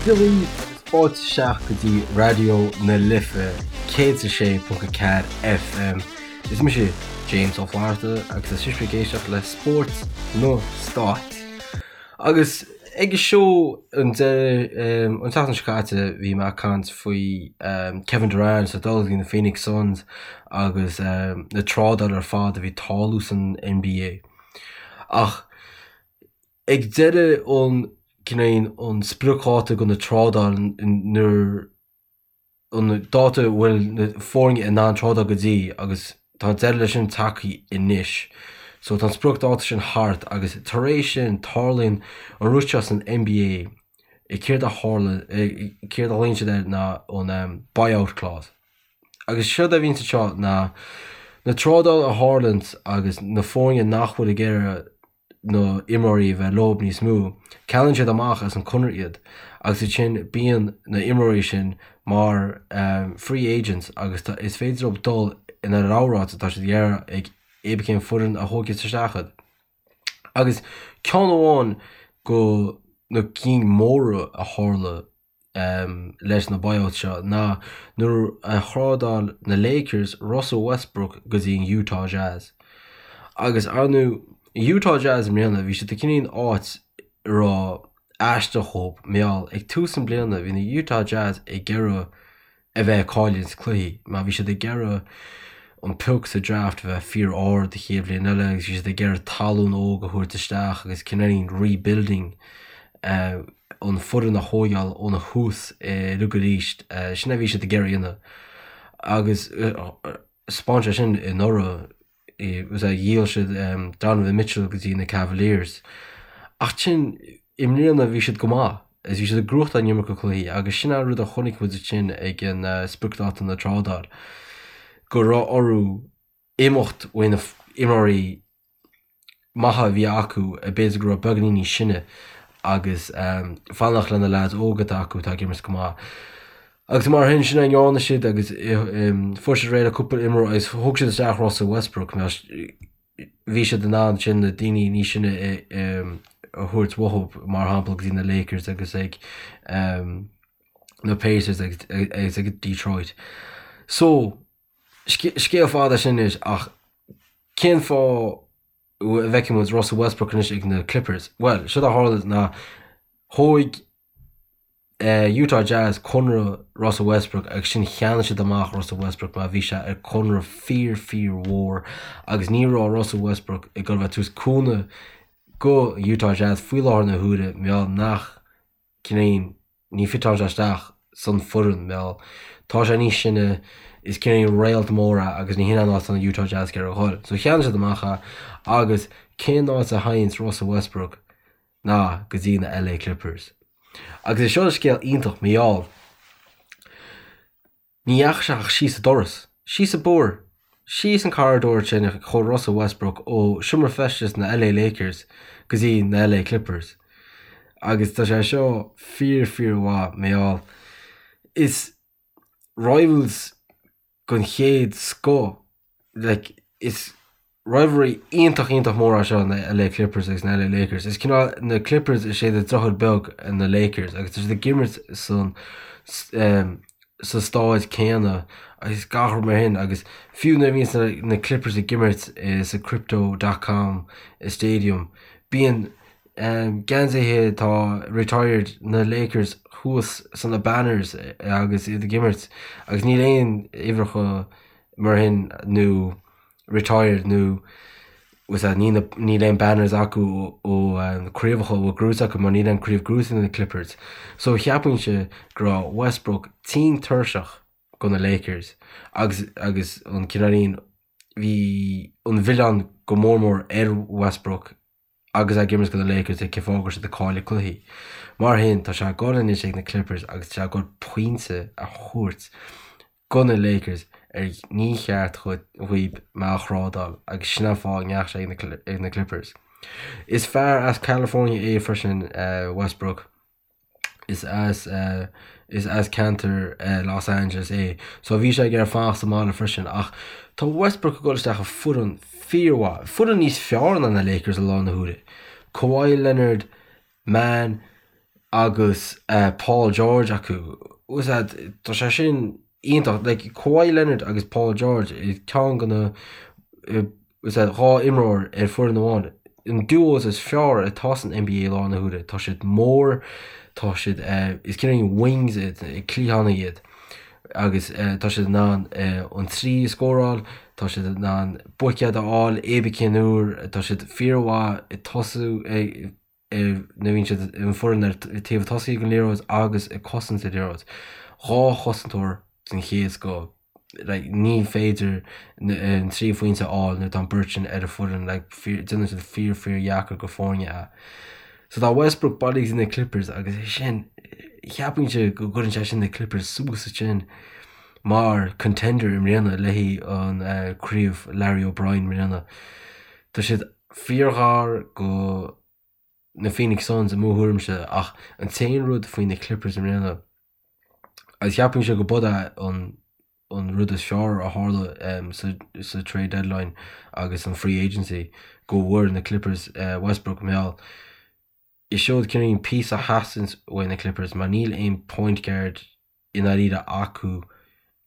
Dia dhaoibh agus fáilte isteach go dtí Raidió na Life 106.4 FM. Is mise James Ó Flatharta agus tá sibh ag éisteacht le Spórt na Stát. Agus ag an seó an deireadh an tseachtain seo caite bhí mé ag caint faoi Kevin Durant ag dul go dtí na Phoenix Suns agus na trádáil ar fad a bhí ag tarlú san NBA. Ach ag deireadh an cineál an spriocdháta do na trádáil nuair an dáta a bhfuil na foirne in ann trádáil go dtí agus tá an deireadh leis sin tagtha anois. So tá an spriocdháta sin thart agus tar éis sin tarlaíonn an rud seo san NBA céard a tharla céard a ghlaonn siad air ná an buyout clause. Agus séard a bhíonn anseo ná na trádáil a tharlaíonn agus na foirne nach bhfuil ag iarraidh na imreoirí a bheith leo níos mó, ceannaíonn siad amach as an conradh iad agus ansin bíonn na imreoirí sin mar free agents agus is féidir leo dul ina rogha áit atá siad ag iarraidh ag cibé cén foireann a thógfas isteach iad. Agus ceann amháin go na cinn móra a tharla leis na buyouts seo ná nuair a thrádáil na Lakers Russell Westbrook go dtí an Utah Jazz. Agus ar ndóigh, Utah Jazz i mbliana, bhí siad i cineál áit a raibh aisteach dhóibh, mar gheall ag tús an bliana bhí na Utah Jazz ag iarraidh a bheith ag cailliúint cluichí mar bhí siad ag iarraidh an pioc sa draft a bheith fíor ard an chéad bhliain eile agus bhí siad ag iarraidh tallann óg a thabhairt isteach agus cineáilín rebuilding an foireann a thógáil óna thús uilig arís. Sin a bhí siad ag iarraidh a dhéanamh agus 'spáin sé sin anuraidh dhíol siad Donovan Mitchell go dtí na Cavaliers. Ach sin i mbliana bhí siad go maith agus bhí siad ag gnóthachtáil an iomarca cluichí agus sin an rud a chonaic muid ansin ag an spriocdháta na trádáil go raibh orthu imeacht ó na imreoirí maithe a bhí acu, b'fhéidir go raibh beagáinín níos sine agus fanacht le na leaids óga atá acu atá ag imirt go maith. Agus mar sin, sin a ndearna siad agus fuair siad réidh le cúpla imreoir agus thóg siad isteach Russell Westbrook mar bhí siad in ann sin na daoine níos sine a thabhairt uathu mar shampla go dtí na Lakers agus ag na Pacers agus ag Detroit. So, Scéal fada sin anois ach cén fáth a bhfeiceann muid Russell Westbrook anois ag na Clippers? Bhuel, séard a tharla ná thóig Utah Jazz conradh Russell Westbrook agus sin cheannaigh siad amach Russell Westbrook mar bhí sé ar conradh fíor fíor mhór agus ní raibh Russell Westbrook ag dul a bheith ag tabhairt cúnamh go Utah Jazz faoi láthair na huaire mar gheall nach cineál ní fiteálann sé isteach san foireann mar gheall tá sé níos sine, is cineál réalt mór é agus ní hin an áit atá na Utah Jazz ag iarraidh a dhul. So cheannaigh siad amach é agus cén áit a théanns Russell Westbrook ná go dtí na LA Clippers. Agus is seo scéal iontach mar gheall Ní dheachaigh sé ach síos an doras. Síos an bóthar. Síos an corridor sin a chuaigh Russell Westbrook ó seomra feistis na LA Lakers go dtí na LA Clippers. Agus tá sé seo fíor fíor mhaith mar gheall is rivals den chéad scoth like is rivalry iontach iontach mór é seo na LA Clippers agus na LA Lakers. Is cineál na Clippers is iad an deartháir beag ar na Lakers agus tá siad ag imirt san sa stáid céanna agus gach rud mar shin agus fiú nuair a bhíonn na Clippers ag imirt sa Crypto dot com Stadium bíonn geansaithe atá retired na Lakers thuas sna banners agus iad ag imirt agus níl aon uimhreacha mar shin nó retired nó was that níl níl aon banners acu ó na craobhacha a bhfuil gnóthaithe acu mar níl aon craobh gnóthaithe ag na Clippers. So cheapfainnse go raibh Westbrook tinn tuirseach go na Lakers agus agus an cineáilín bhí an mhilleán go mór mór ar Westbrook agus é ag imirt do na Lakers cén fáth go raibh siad ag cailleadh cluichí. Mar shin, tá sé ag dul anois ag na Clippers agus tá sé ag dul pointe a thabhairt go na Lakers ar ní cheart dhaoib mé a thrádáil agus sin an fáth a ndeachaigh sé ag na Clippers. Is fear as California é freisin Westbrook. Is as is as ceantar Los Angeles é so bhí sé ag iarraidh fanacht sa mbaile freisin ach tá Westbrook ag dul isteach i foireann fíormhaith, foireann níos fearr ná na Lakers i láthair na huaire. Kawhi Leonard, man. agus Paul George acu. Bhfuil a fhios agat, tá sé sin iontach. Like, Kawhi Leonard agus Paul George, ceann de na, bhfuil a fhios agat, 2 imreoir ar foireann amháin. An duos is fearr atá san NBA i láthair na huaire. Tá siad mór, tá siad, is cineál wings iad, cliathánaigh iad. Agus tá siad in ann an 3 a scóráil, tá siad in ann buicéad a fháil, cibé cén uair, tá siad fíormhaith ag tosú, nuair a bhíonn siad an foireann ar taobh tosaigh den liathróid agus ag cosaint an liathróid. 2 chosantóir den chéad scoth. Like, ní féidir an 3 phointe a fháil nuair atá an beirt sin ar an foireann. Like, déanann siad fíor fíor dheacair go foirne é. So tá Westbrook bailithe go dtí na Clippers agus é sin, cheapfainnse go gcuireann sé sin na Clippers suas ansin mar contender i mbliana le haghaidh an craobh Larry O'Brien i mbliana. Tá siad fíorghar go na Phoenix Suns i mo thuairimse ach an t-aon rud faoi na Clippers i mbliana agus cheapfainnse go b'é an an rud is fearr a tharla sa sa trade deadline agus an free agency go bhfuair na Clippers Westbrook mar gheall is seod cineál píosa a theastaíonns uaidh na Clippers mar níl aon point guard i ndáiríre acu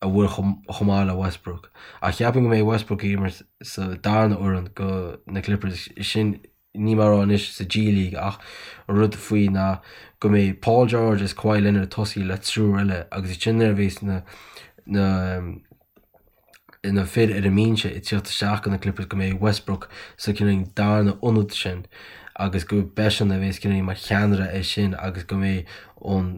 a bhfuil chomh maith le Westbrook. Ach cheapfainn go mbeidh Westbrook ag imirt sa darna fhoireann go na Clippers, sin níl mé ag rá anois sa G League ach an rud faoi ná go mbeidh Paul George is Kawhi Leonard ag tosaí le triúr eile agus ansin nuair a bheas na na na fir ar an mbinse ag tíocht isteach go na Clippers go mbeidh Westbrook sa cineál darna ionad sin agus go b'eisean a bheas cineál mar cheannaire air sin agus go mbeidh an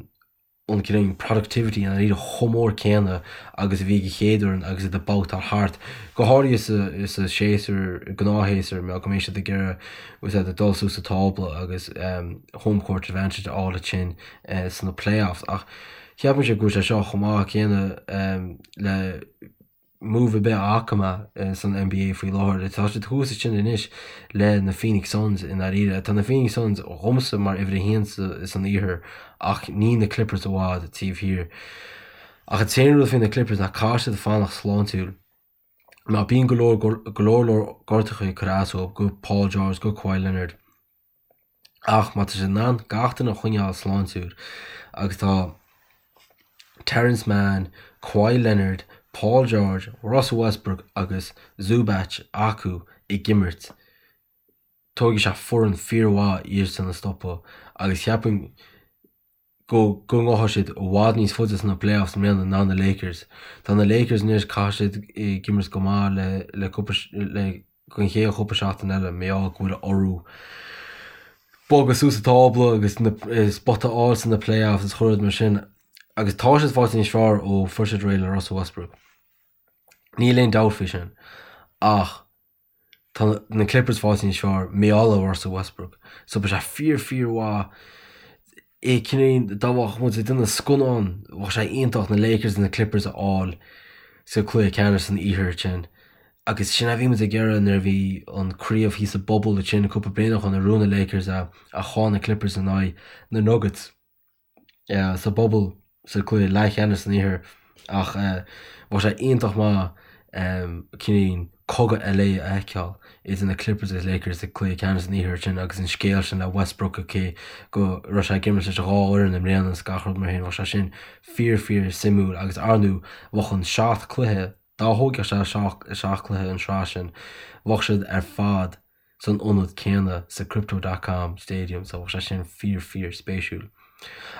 an cineál productivity i ndáiríre chomh mór céanna agus a bhí ag an chéad fhoireann agus iad ag babhtáil thart, go háirithe sa sa séasúr, gnáthshéasúr, mar go mbeidh siad ag iarraidh bhfuil a fhios agat dul suas sa tábla agus home court advantage a fháil ansin sna playoffs. Ach cheapfainnse go bhfuil sé seo chomh maith céanna le move ar bith a fhaca mé san NBA faoi láthair. Tá siad thuas ansin anois le na Phoenix Suns i ndáiríre. Tá na Phoenix Suns dhomsa mar uimhir a haon san iarthar ach níl na Clippers i bhfad taobh thiar. Ach an t-aon rud faoi na Clippers ná caithfidh siad fanacht sláintiúil. Mar bíonn go leor go leor leor gortacha ag cur as dóibh, go Paul George, go Kawhi Leonard. Ach má tá siad in ann gach duine a choinneáil sláintiúil agus tá Terance Mann, Kawhi Leonard, Paul George, Russell Westbrook agus Zubac acu ag imirt, tógfaidh sé foireann fíormhaith iadsan a stopadh agus cheapfainn go go ngabhfaidh siad i bhfad níos faide sna playoffs i mbliana ná na Lakers. Tá na Lakers anois, caithfidh siad ag imirt go maith le le cúpla le don chéad chúpla seachtain eile mar gheall go bhfuil orthu bogadh suas an tábla agus na spota a fháil sna playoffs is chuile rud mar sin agus tá siad faighte níos fearr ó fuair siad réidh le Russell Westbrook. Níl aon dabht faoi sin. Ach Tá na Clippers faighte níos fearr mar gheall ar Russell Westbrook. So beidh sé fíor fíor mhaith é cineál dá mbeadh muid ag déanamh scannán bheadh sé iontach na Lakers agus na Clippers a fháil sa cluiche ceannais san iarthar ansin. Agus sin a bhí muid ag iarraidh nuair a bhí an craobh thíos sa bubble ansin cúpla bliain ó shin nuair a bhuaigh na Lakers é ach chaill na Clippers in aghaidh na Nuggets. sa bubble sa cluiche leathcheannais san iarthar ach bheadh sé iontach maith cineál cogadh LA a fheiceáil idir na Clippers agus Lakers sa cluiche ceannais san iarthar sin agus an scéal sin le Westbrook cé go raibh sé ag imirt leis an dhá fhoireann i mbliana is gach rud mar sin bheadh sé sin fíor fíor suimiúil agus ar ndóigh bheadh an seacht cluiche dá thógfadh sé seacht cluiche an sraith sin bheadh siad ar fad san ionad céanna sa Crypto dot com Stadium so bheadh sé sin fíor fíor spéisiúil.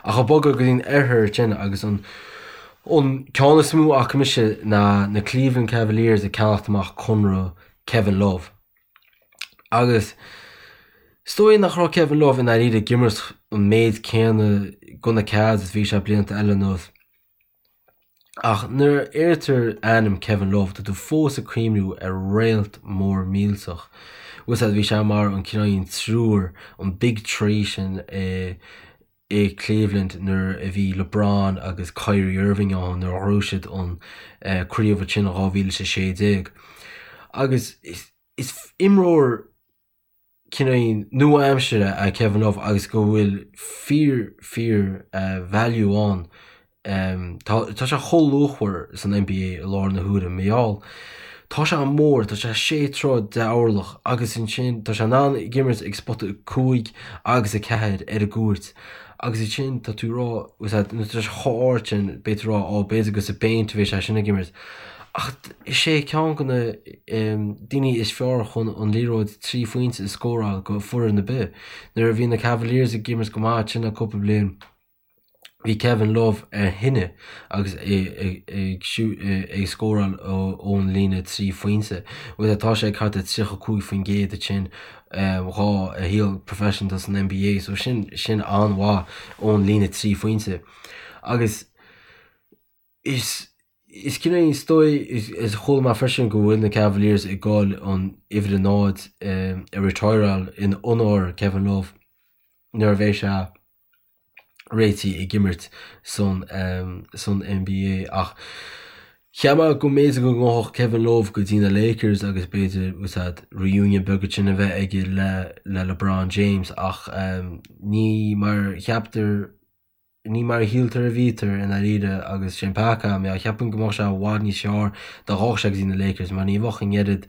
Ach ag bogadh go dtí an oirthear ansin agus an an ceann is mó a fhaca mise ná na Cleveland Cavaliers ag ceannacht amach conradh Kevin Love. Agus is dóigh nach raibh Kevin Love i ndáiríre ag imirt an méid céanna go na Cavs is bhí sé blianta eile anuas. Ach nuair a deirtear ainm Kevin Love, tá tú fós ag cuimhniú ar réalt mór millteach. Bhfuil fhios agat, bhí sé mar an cineál triúr, an Big Three sin i i Cleveland nuair a bhí LeBron agus Kyrie Irving ann nuair a ghnóthaigh siad an craobh ansin in 2016. Agus is imreoir cineál nua-aimseartha é Kevin Love agus go bhfuil fíor fíor value ann. Tá tá sé chomh luachmhar san NBA i láthair na huaire mar gheall. Tá sé mór, tá sé sé troigh de orlach agus ansin tá sé in ann ag imirt ag spota 5 agus 4 ar an gcúirt agus ansin tá tú ag rá, nuair atá sé chomh ard sin, beidh tú ag rá, ó b'fhéidir gur sa bpéint a bheidh sé sin ag imirt. Ach is é ceann de na daoine is fearr chun an liathróid 3 phointe a scóráil go foireann ar bith. Nuair a bhí na Cavaliers ag imirt go maith ansin le cúpla bliain, Bhí Kevin Love ar thine agus é ag scóráil ón líne 3 phointe. Bhuel, tá sé ag thart ar 35% ansin dhá a shaol professional san NBA, so sin sin an-mhaith ón líne 3 phointe. Agus is is cineál is dóigh is chuala mé freisin go bhfuil na Cavaliers ag dul an uimhir a 0 a retireáil in onóir Kevin Love nuair a bheidh sé réitithe ag imirt san san NBA ach cheap mé go mb'fhéidir go ngabhfadh Kevin Love go dtí na Lakers agus b'fhéidir úsáid reunion beag ansin a bheith aige le le LeBron James ach ní mar cheaptar ní mar a shíltear a bhítear i ndáiríre agus sin peaca mé cheapfainn go mbeadh sé i bhfad níos fearr dá ngabhfadh sé go dtí na Lakers mar ní bheadh an oiread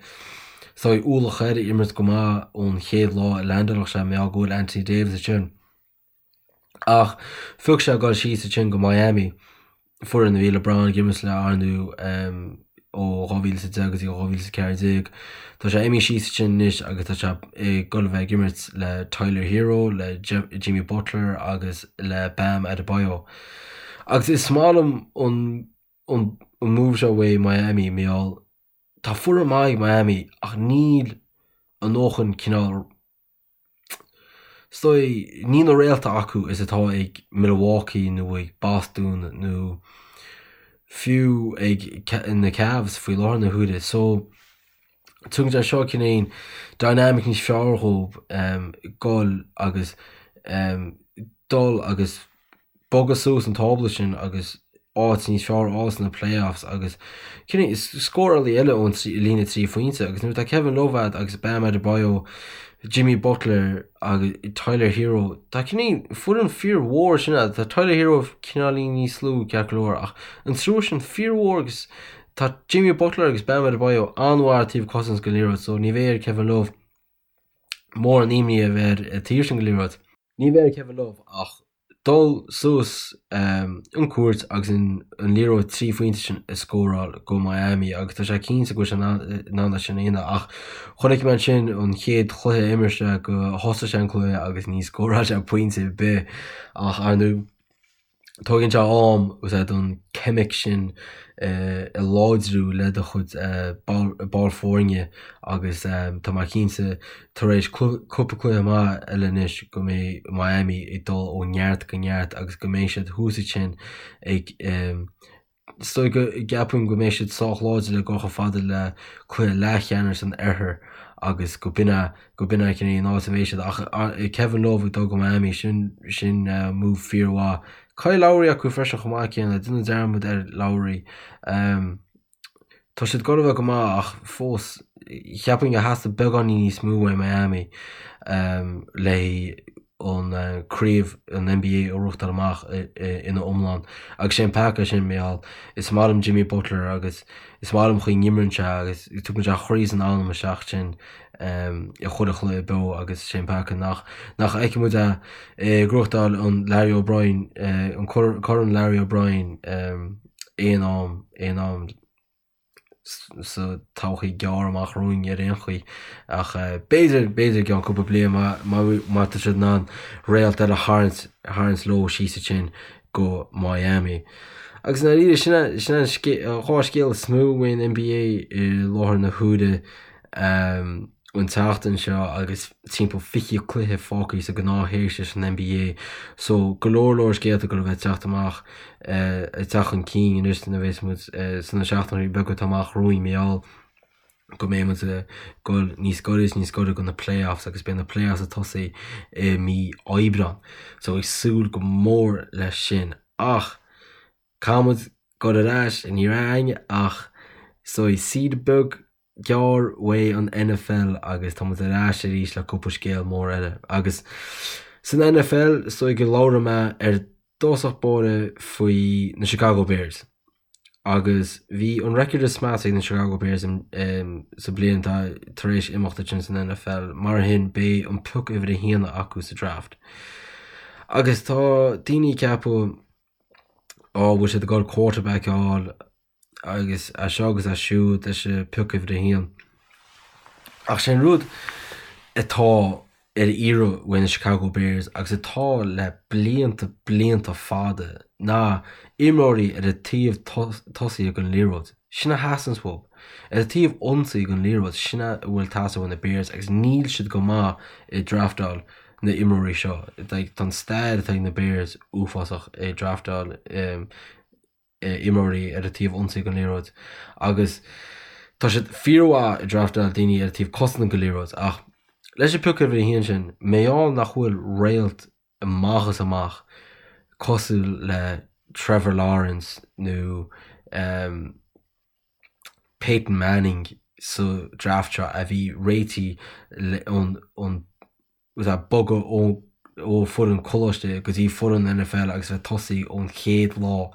saghas ualach air imirt go maith ón chéad lá a leaindeálfadh sé mar go bhfuil Anthony Davis ansin. Ach phioc sé dul síos ansin go Miami, foireann a bhí LeBron ag imirt le ar ndóigh ó 2010 go dtí 2014. Tá sé imithe síos ansin anois agus tá sé ag dul a bheith ag imirt le Tyler Herro, le Jimmy Butler agus le Bam Adebayo. Agus is maith liom an an move seo uaidh Miami, mar gheall tá foireann maith ag Miami ach níl a ndóthain cineál Is dóigh, níl na réalta acu is atá ag Milwaukee nó ag Boston nó fiú ag na Cavs faoi láthair na huaire. So, tugann sé seo cineál dynamic níos fearr dhóibh dul agus dul agus bogadh suas an tábla sin agus áit níos fearr a fháil sna playoffs agus cineál scórálaí eile ón líne 3 phointe agus nuair atá Kevin Love agat agus Bam Adebayo, Jimmy Butler agus Tyler Herro tá cineál foireann fíormhór sin agat. Tá Tyler Herro cineáilín níos lú ceart go leor ach an triúr sin fíormhór agus tá Jimmy Butler agus Bam Adebayo an-mhaith ar taobh cosaint den liathróid so ní bheidh ar Kevin Love mórán imní a bheith air ar taobh sin den liathróid. Ní bheidh ar Kevin Love ach dul suas an cúirt agus an liathróid 3 phointe sin a scóráil go Miami agus tá sé cinnte go bhfuil sé in ann é sin a dhéanamh ach chonaic mé ansin an chéad chluiche a imir sé go thosaigh sé an cluiche agus ní scóráil sé pointe ar bith ach ar ndóigh Tógann sé am úsáid don ceimic sin a láidriú le do chuid ball foirne agus tá mé cinnte tar éis cúpla cluiche maith eile anois go mbeidh Miami ag dul ó neart go neart agus go mbeidh siad thuas ansin ag Is dóigh go gceapaim go mbeidh siad sách láidir le dul chomh fada le cluiche leathcheannais an Oirthir agus go b'in é go b'in é cineál an áit a mbeidh siad. Ach Kevin Love ag dul go Miami, sin sin move fíormhaith. Kyle Lowry acu freisin chomh maith céanna, déanamh dearmad ar Lowry. Tá siad ag dul a bheith go maith ach fós cheapfainn gur theastaigh beagáinín níos mó uaidh Miami le an craobh an NBA a ghnóthachtáil amach ina iomlán. Agus sé an peaca é sin, mar gheall, is maith liom Jimmy Butler agus is maith liom chaoi n-imríonn sé agus tugann sé a chroí is an anam isteach sin i chuile chluiche beo agus sé an peaca nach nach bhfeicfidh muid é ag gnóthachtáil an Larry O'Brien, an Corn Larry O'Brien aon am, aon am. sa todhchaí gearr amach romhainn ar aon chaoi. Ach b'fhéidir, b'fhéidir i gceann cúpla bliain má, má, má tá siad in ann réalt eile a tharraingt, a tharraingt leo síos ansin go Miami. Agus i ndáiríre, sin é, sin é an dhá scéal is mó faoin NBA i láthair na huaire. An tseachtain seo agus timpeall 20 cluiche fágtha sa gnáthshéasúr san NBA so go leor leor scéalta ag dul a bheith ag teacht amach ag teacht chun cinn anois nuair a bheas muid sna seachtainí beaga atá amach romhainn mar gheall go mbeidh muid ag dul níos gaire is níos gaire go na playoffs agus beidh na playoffs ag tosaí i mí Aibreán so ag súil go mór leis sin ach caithfidh muid dul ar ais ní raibh againn ach so saoire beag gearr uaidh an NFL agus tá muid ar ais arís le cúpla scéal mór eile. Agus san NFL, is dóigh go labhróidh mé ar dtosach báire faoi na Chicago Bears. Agus bhí an record is measa ag na Chicago Bears sa bliain atá tar éis imeacht ansin san NFL, mar sin beidh an pioc uimhir a haon acu sa draft. Agus tá daoine ag ceapadh, á, bhfuil siad ag dul quarterback a fháil agus é seo agus é siúd leis an pioc uimhir a haon. Ach sé an rud atá ar iarraidh uaidh na Chicago Bears agus atá le blianta blianta fada ná imreoirí ar an taobh tosaigh den liathróid. Sin a theastaíonns uathu. Ar an taobh ionsaí den liathróid, sin a bhfuil ag teastáil ó na Bears agus níl siad go maith ag draftáil na imreoirí seo. Tá an stair atá ag na Bears uafásach ag draftáil imreoirí ar an taobh ionsaí den liathróid agus tá siad fíormhaith ag draftáil daoine ar an taobh cosanta den liathróid ach leis an pioc uimhir a haon sin, mar gheall nach bhfuil réalt amach is amach cosúil le Trevor Lawrence nó Peyton Manning sa draft seo a bhí réitithe ón agus ag bogadh ó foireann coláiste go dtí foireann NFL agus bheith tosaí ón chéad lá,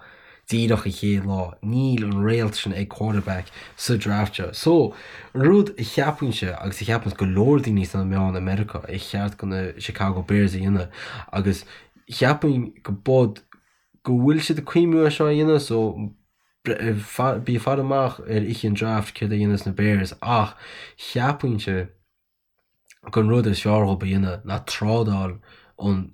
díreach an chéad lá. Níl an réalt sin ag quarterback sa draft seo. So, an rud a cheapfainnse agus a cheapanns go leor daoine sna meáin i Meiriceá ar cheart go na Chicago Bears a dhéanamh agus cheapfainn go bud go bhfuil siad ag cuimhniú ar seo a dhéanamh so bí ag faire amach ar oíche an draft céard a dhéanfas na Bears ach cheapfainnse gur an rud is fearr dhóibh a dhéanamh ná trádáil an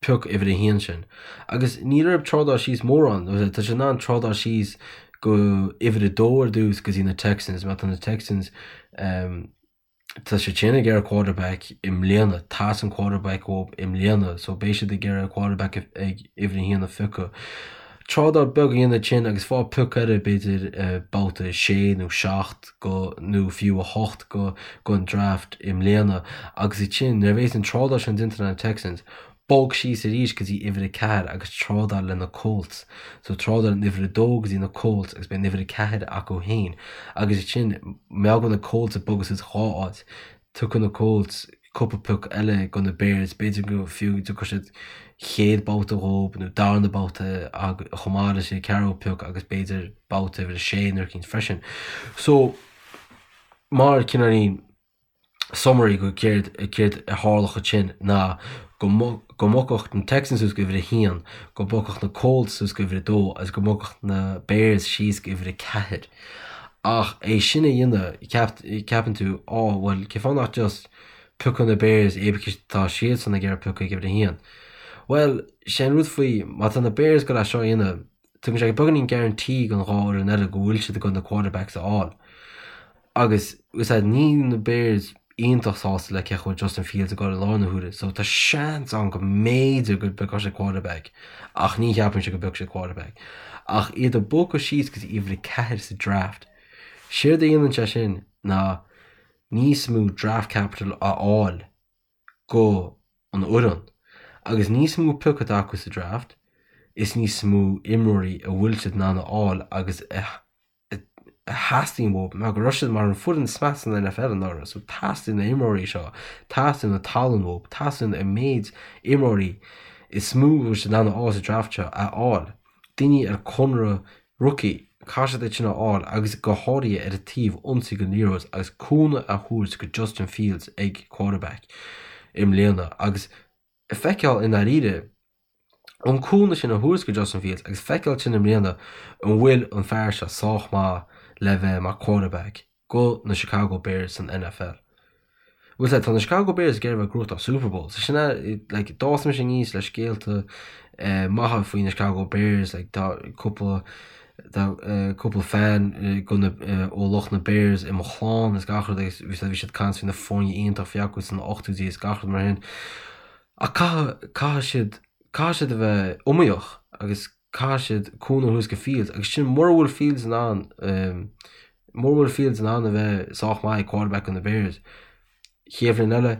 pioc uimhir a haon sin. Agus níl orthu trádáil síos mórán, tá siad in ann trádáil síos go uimhir a dó ar dtús go dtí na Texans, má tá na Texans tá siad sin ag iarraidh quarterback i mbliana, teastaíonn quarterback uathu i mbliana, so beidh siad ag iarraidh quarterback ag uimhir a haon a phiocadh. Trádáil beag a dhéanamh ansin agus fáil pioc eile b'fhéidir babhta 6 nó 7 go nó fiú 8 go gon draft i mbliana agus ansin nuair a bhéas an trádáil sin déanta le na Texans, bog síos arís go dtí uimhir 4 agus trádáil le na Colts. So trádáil an uimhir 2 go dtí na Colts agus beidh an uimhir 4 acu féin agus ansin mar gheall go bhfuil na Colts ag bogadh suas dhá áit, Tiocfaidh na Colts cúpla pioc eile go na Bears, b'fhéidir go fiú dtiocfaidh siad chéad babhta dhóibh nó darna babhta chomh maith leis an ceathrú pioc agus b'fhéidir babhta uimhir a sé nó eicínt freisin. So, mar cineáilín summary go céard céard a tharlódh ansin ná go go mbogfadh na Texans suas go uimhir a haon, go mbogfadh na Colts suas go uimhir a dó agus go mbogfadh na Bears síos go uimhir a ceathair. Ach é sin a dhéanamh, ceapann tú, á, bhuel, cén fáth nach just piocadh na Bears é because tá siadsan ag iarraidh piocadh ag uimhir a haon. Bhuel, sé an rud faoi, má tá na Bears ag dul é seo a dhéanamh, tugann sé beagáinín guarantee don dhá fhoireann eile go bhfuil siad ag dul na quarterbacks a fháil. Agus, is ea, níl na Bears iontach sásta le cén chaoi a bhfuil Justin Fields ag dul i láthair na huaire, so tá seans ann go mb'fhéidir go bpiocfadh siad quarterback, ach ní cheapaimse go bpiocfaidh siad quarterback. Ach iad ag bogadh síos go dtí uimhir 4 sa draft, séard a dhéanann sé sin ná níos mó draft capital a fháil go an fhoireann. Agus níos mó pioc atá acu sa draft, is níos mó imreoirí a bhfuil siad in ann a fháil agus a a theastaíonn uathu mar go raibh siad mar an foireann is measa san NFL anuraidh so teastaíonn na imreoirí seo, teastaíonn na tallann uathu, teastaíonn an méid imreoirí is mó a bhfuil siad in ann a fháil sa draft seo a fháil. Daoine ar conradh rookie, caithfidh siad iad sin a fháil agus go háirithe ar an taobh ionsaí den liathróid agus cúnamh a thabhairt go Justin Fields ag quarterback i mbliana agus feiceáil i ndáiríre an cúnamh sin a thabhairt go Justin Fields agus feiceáil ansin i mbliana an bhfuil an fear seo sách maith le bheith mar quarterback go na Chicago Bears san NFL. Bhuel tá na Chicago Bears ag iarraidh a bheith ag gnóthachtáil Super Bowl so sin é like d'fhás mise aníos le scéalta eh, maithe faoi na Chicago Bears like tá cúpla tá eh, cúpla fan eh, go na eh, ó lucht na Bears i mo chlann is gach rud agus bhí bhí siad ag caint faoi na foirne iontach a bhí acu sna 80idí is gach rud mar sin. Ach caithfidh, caithfidh siad, caithfidh siad a bheith iomaíoch agus caithfidh siad cúnamh a thabhairt go Fields agus sin mura bhfuil Fields in ann, mura bhfuil Fields in ann a bheith sách maith ag quarterback do na Bears, chéad bhliain eile,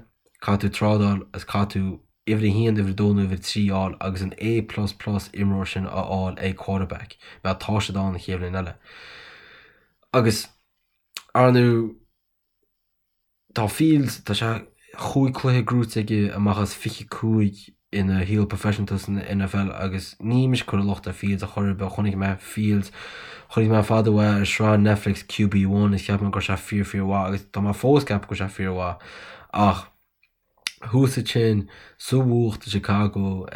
caithfidh tú trádáil agus caithfidh tú uimhir a haon, uimhir a dó nó uimhir a trí a fháil agus an A plus plus imreoir sin a fháil ag quarterback mar tá siad ann an chéad bhliain eile. Agus, ar ndóigh, Tá Fields, tá sé chúig cluiche gnóite aige amach as 25. ina shaol proifisiúnta san NFL agus ní mise ag cur an locht ar Fields ar chor ar bith, chonaic mé Fields, chonaic mé fada uaidh ar sraith Netflix QB1 is cheap mé go raibh sé fíor fíor mhaith agus tá mé fós ag ceapadh go bhfuil sé fíor mhaith ach thuas ansin sa bhfuacht i Chicago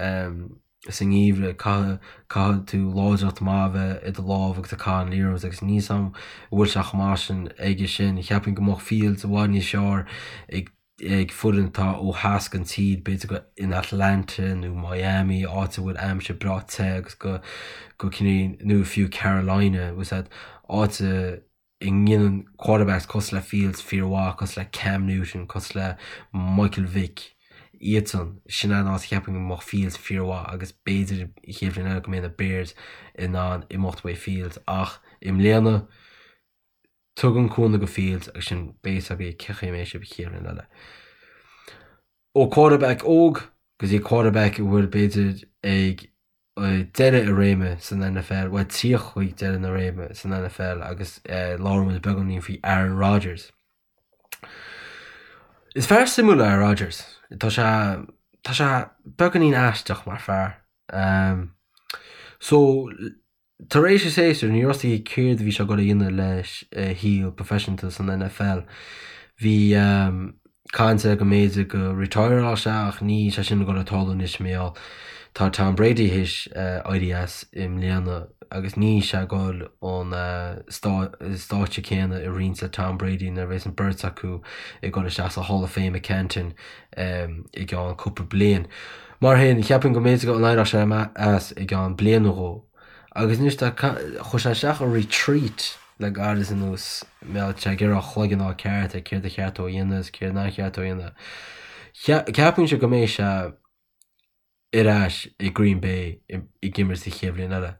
sa ngeimhreadh caithfidh caithfidh tú láidreacht maith a bheith i do lámh agus ag caitheamh an liathróid agus níl 's a'm an bhfuil sé chomh maith sin aige sin. Cheapfainn go mbeadh Fields i bhfad níos fearr ag ag foireann atá ó theas den tír, b'fhéidir go in Atlanta nó Miami, áit a bhfuil aimsir breá te agus go go cineál nó fiú Carolina, bhfuil 's a'd, áit a ndéanann quarterbacks cosúil le Fields fíor mhaith, cosúil le Cam Newton, cosúil le Michael Vick, iadsan, sin an áit a cheapfainn go mbeadh Fields fíor mhaith agus b'fhéidir an chéad bhliain eile go mbeidh na Bears in ann imeacht uaidh Fields ach i mbliana, Tugaim cúnamh do Fields agus sin beidh 'fhios agaibh cén chaoi a mbeidh sibh an chéad bhliain eile. Ó quarterback óg go dtí quarterback a bhfuil b'fhéidir ag deireadh a réime san NFL, bhuel tíocht chuig deireadh na réime san NFL agus labhróidh muid beagáinín faoi Aaron Rodgers. Is fear suimiúil é Aaron Rodgers. Tá sé tá sé beagáinín aisteach mar fear. So Tar éis a shéasúir, ní raibh fhios aige céard a bhí sé ag dul a dhéanamh leis a shaol proifisiúnta san NFL. Bhí caint air go mb'fhéidir go retireáil sé ach níl sé sin ag dul a tarlú anois mar gheall tá Tom Brady théis éirí as i mbliana agus níl sé ag dul an stáitse céanna a roinnt le Tom Brady nuair a bheas an beirt acu ag dul isteach sa Hall of Fame i Canton i gceann cúpla bliain. Mar sin, cheapfainn go mb'fhéidir go n-éireodh sé as i gceann bliain nó dhó. Agus anois tá, chuir sé isteach a retreat le gairid anuas, mar tá sé ag iarraidh a chloigeann a fháil ceart ar céard a cheart dó a dhéanamh is céard nár cheart dó a dhéanamh. Ceapainnse go mbeidh sé ar ais i Green Bay ag imirt sa chéad bhliain eile.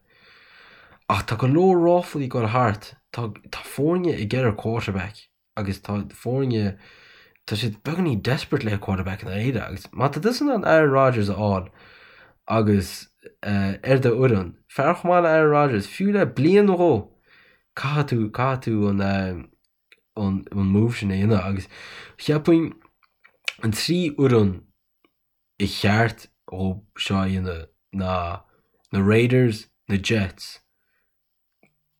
Ach tá go leor ráflaí ag dul thart, tá tá foirne ag iarraidh quarterback. agus tá foirne, tá siad beagáinín desperate le quarterback i ndáiríre agus má tá tusa in ann Aaron Rodgers a fháil agus ar do fhoireann, fear chomh maith le Aaron Rodgers, fiú le bliain nó dhó, caithfidh tú, caithfidh tú an an an move sin a dhéanamh agus cheapfainn an trí fhoireann ba cheart dhó seo a dhéanamh ná na Raiders, na Jets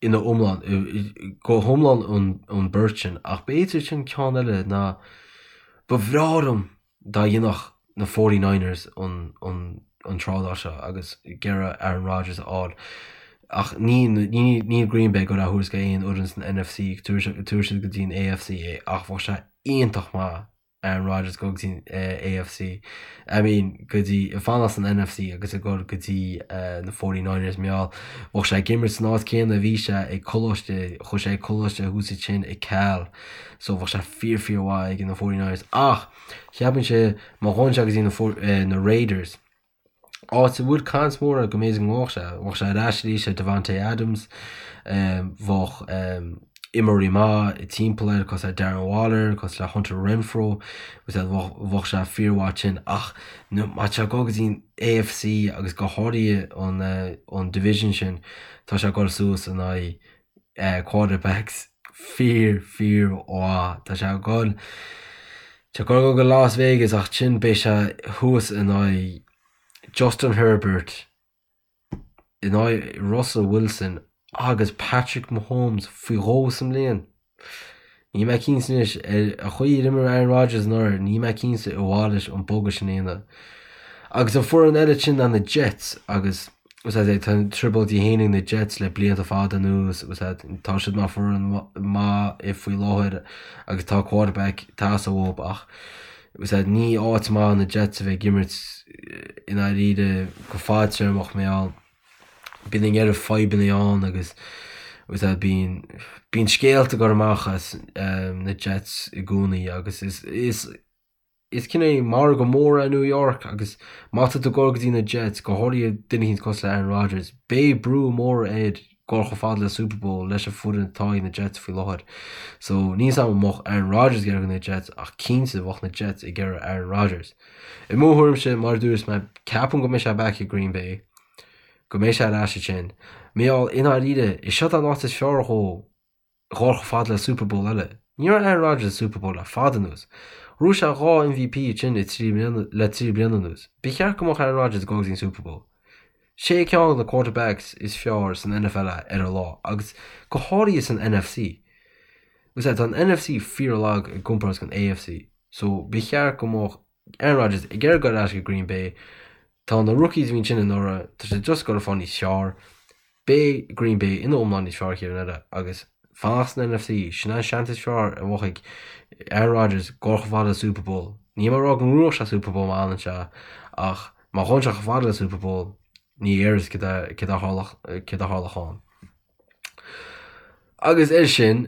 ina iomlán, go hiomlán an beirt sin, ach b'fhéidir sin ceann eile ná ba bhreá liom dá dhéanfadh na Forty Niners an an trádáil seo agus ag iarraidh Aaron Rodgers a fháil. Ach ní níl Green Bay ag dul á thabhairt go aon fhoireann san NFC, tabharfaidh siad go dtí an AFC é ach bheadh sé iontach maith Aaron Rodgers go dtí an AFC, I mean go dtí, ag fanacht san NFC agus ag dul go dtí na 49ers mar gheall, bheadh sé ag imirt san áit céanna a bhí sé ag coláiste, chuaigh sé ag coláiste thuas ansin i Cal, so bheadh sé fíor fíor mhaith ag na 49ers ach cheapfainnse má ghabhann sé go dtí na na Raiders, áit a bhfuil caint mór air go mb'fhéidir go ngabhfadh sé. Bheadh sé ar ais arís le Davante Adams, bheadh imreoirí maith timpeall air cosúil le Darren Waller, cosúil le Hunter Renfrow, bheadh sé fíormhaith ansin. Ach má tá sé ag dul go dtí an AFC agus go háirithe an division sin, tá sé ag dul suas in aghaidh quarterbacks fíor fíor mhaith. Tá sé ag dul tá sé ag dul go Las Vegas ach ansin beidh sé thuas in aghaidh Justin Herbert, in aghaidh Russell Wilson agus Patrick Mahomes faoi dhó sa mbliain. Níl mé cinnte anois ar an chaoi ar imir Aaron Rodgers anuraidh, níl mé cinnte ar mhaith leis an bogadh sin a dhéanamh. Agus an foireann eile sin ná na Jets agus tá trioblóidí féin ag na Jets le blianta fada anuas agus tá siad mar foireann maith faoi láthair agus tá quarterback ag teastáil uathu ach ní áit maith na Jets a bheith ag imirt i ndáiríre go fadtéarmach mar gheall bíonn an oiread fadhbanna ann agus bíonn bíonn scéalta ag dul amach as na Jets i gcónaí agus is is is cineál margadh mór é New York agus má tá tú ag dul go dtí na Jets, go háirithe duine éicint cosúil le Aaron Rodgers, beidh brú mór air dul chomh fada le Super Bowl leis an foireann atá ag na Jets faoi láthair. So níl 's agam an mbeadh Aaron Rodgers ag iarraidh na Jets ach cinnte bheadh na Jets ag iarraidh Aaron Rodgers. I mo thuairimse, mar a dúirt mé, ceapaim go mbeidh sé back i Green Bay, go mbeidh sé ar ais ansin. Mar gheall, i ndáiríre, is seo an áit is fearr dhó dhul chomh fada le Super Bowl eile. Ní raibh Aaron Rodgers i Super Bowl le fada anuas. Ghnóthaigh sé 2 MVP ansin le 3 bliana le 3 bliana anuas. Ba cheart go mbeadh Aaron Rodgers ag dul go dtí an Super Bowl. Sé ceann de na quarterbacks is fearr san NFL é ar a lá agus go háirithe san NFC. Agus tá an NFC fíorlag i gcomparáid den AFC so ba cheart go mbeadh Aaron Rodgers ag iarraidh dul ar ais go Green Bay. Tá na rookies a bhí ansin anuraidh, tá siad just ag dul a fáil níos fearr. Beidh Green Bay ina iomlán níos fearr an chéad bhliain eile agus fanacht san NFC, sin an seans is fearr a bheadh ag Aaron Rodgers dul chomh fada le Super Bowl. Níl mé ag rá go ngnóthóidh sé Super Bowl má fhanann sé ach má ghabhann sé chomh fada le Super Bowl, ní fhear céard a tharlódh ann. Agus air sin,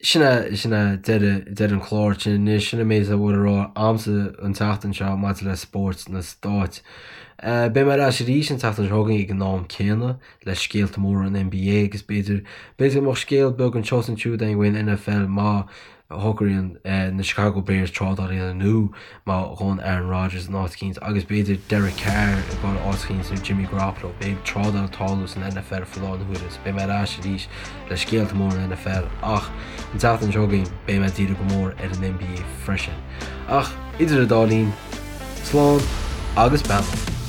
sin é, sin é deireadh, deireadh an chláir sin anois, sin an méid a bhfuil le rá a'msa an tseachtain seo maidir le spóirt na Stáit. Beidh mé ar ais arís an tseachtain seo chugainn ag an am céanna le scéalta móra an NBA agus b'fhéidir, b'fhéidir go mbeadh scéal beag anseo is ansiúd againn faoin NFL má shocraíonn na Chicago Bears trádáil a dhéanamh nó má ghabhann Aaron Rodgers in áit eicínt agus b'fhéidir Derek Carr ag dul áit eicínt nó Jimmy Garoppolo. Beidh trádáil ag tarlú san NFL faoi láthair na huaire so beidh mé ar ais arís le scéalta móra an NFL ach an tseachtain seo chugainn beidh mé ag díriú go mór ar an NBA freisin. Ach idir an dá linn, slán agus beannacht!